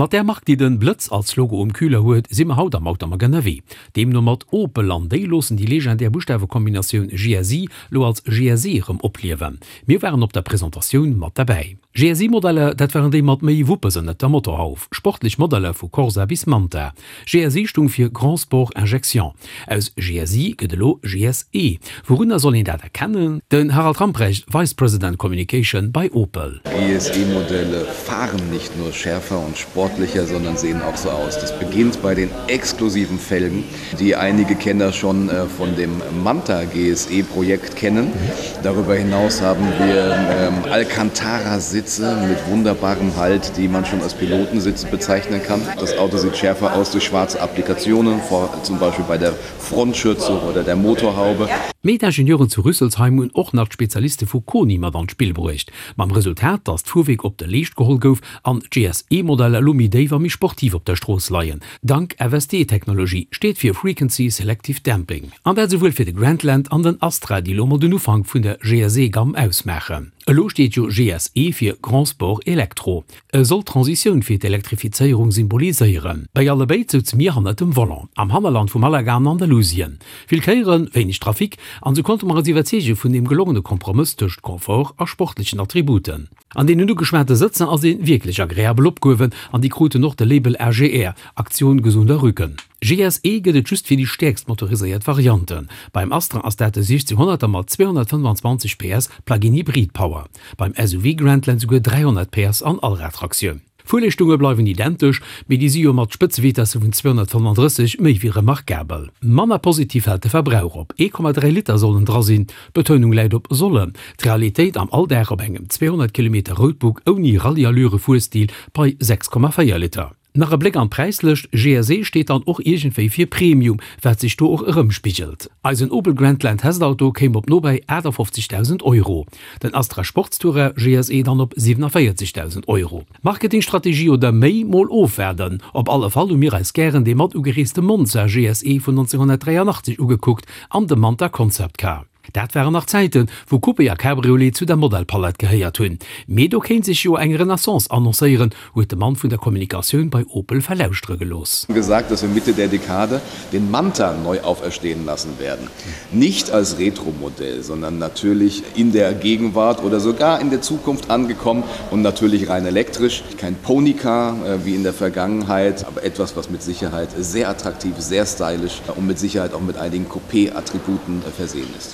Mat där Mark déi den Blëtz als Logo um Kühler huet, si mer haut am Automag ënnerwee. Deemno mat Opel an déi loossen déi legendär Buschtawekombinatioun GSI lo als GSE erëm opliewen. Mir waren op der Presentatioun mat derbäi. GSI-Modeller, dat waren déi mat méi Wuppes ënnert der Motorhauf, sportlech Modeller vu Corsa bis Manta. GSI stung fir Grand Sport Injection. Aus GSI gëtt elo GSE. Wourunner soll een dat erkennen? Den Harald Ramprecht, Vice President Communication bei Opel. GSE-Modelle fahren nicht nur schärfer und sportlicher, sondern sehen auch so aus. Das beginnt bei den exklusiven Felgen, die einige Kenner schon äh, von dem Manta GSE-Projekt kennen. Darüber hinaus haben wir ähm, Alcantara-Sitze mit wunderbarem Halt, die man schon als Pilotensitze bezeichnen kann. Das Auto sieht schärfer aus durch schwarze Applikationen, vor, zum Beispiel bei der Frontschürze oder der Motorhaube. Mee d'Ingenieuren zu Rüsselsheim hunn och nach d'Spezialiste vu Koni mat an d'Spill bruecht, mam Resultat, datt d'Fuerwierk op de Leescht geholl gouf an d'GSE-Modeller elo méi déif a méi sportiv op der Strooss leien. Dank FSD-Technologie, steet fir Frequency Selective Damping. An dat esouwuel fir de Grandland an den Astra, déi elo mol den Ufank vun der GSE-Gamm ausmaachen. Elo steet jo GSE fir Grand Sport Electro. E soll d'Transitioun fir d'Elektrifizéierung symboliséieren. Bei allebéid souze mir hannert dem Volant, am Hannerland vu Malaga an Andalusien. Vill Kéieren, wéineg Trafic, an sou konnte mer eis iwwerzeege vun deem gelongene Kompromëss tëscht Confort a sportlechen Attributen. An deenen ugeschwate Sëtzer ass ee wierklech agreabel opgehuewen an déi kruten och de Label AGR, Aktion gesunder Rücken. GSE gëtt et just fir déi stäerkst motoriséiert Varianten. Beim Astra ass dat de 1600er mat 225 PS Plug-in Hybrid Power. Beim SUV Grandland souguer 300 PS an Allradtraktioun. D'Fuerleeschtunge bleiwen identesch, mee déi si jo mat Spëtzevitesse vun 235 méi wéi remarkabel. Manner positiv fält de Verbrauch op, 1,3 Liter sollen dra sinn, d'Betounung läit op sollen. D'Realitéit am Alldag op engem 200 Kilometer Roadbook ouni Rallye-Allure-Fuerstil bei 6,4 Liter. Nach e Bléck an d'Präislëscht, GSE steet dann och iergendwéi fir Premium, wat sech do och erëmspigelt. Eisen Opel Grandland Testauto kéim op nobäi 58.000 Euro, den Astra Sportstourer GSE dann op 47.000 Euro. Marketingstrategie oder méi? Mol ofwaarden. Op alle Fall hu mir eis gären dee mat ugereeste Monza GSE vun 1983 ugekuckt an de Manta Concept Car. Dat waren nach Zäiten, wou Coupé a Cabriolet zu der Modellpalett gehéiert hunn. Mee do kéint sech jo eng Renaissance annoncéieren, huet de Mann vun der Kommunikatioun bei Opel verlauschtere gelooss. Gesagt, dass wir Mitte der Dekade den Manta neu auferstehen lassen werden. Nicht als Retromodell, sondern natürlich in der Gegenwart oder sogar in der Zukunft angekommen und natürlich rein elektrisch. Kein Ponycar wie in der Vergangenheit, aber etwas, was mit Sicherheit sehr attraktiv, sehr stylisch und mit Sicherheit auch mit einigen Coupé-Attributen versehen ist.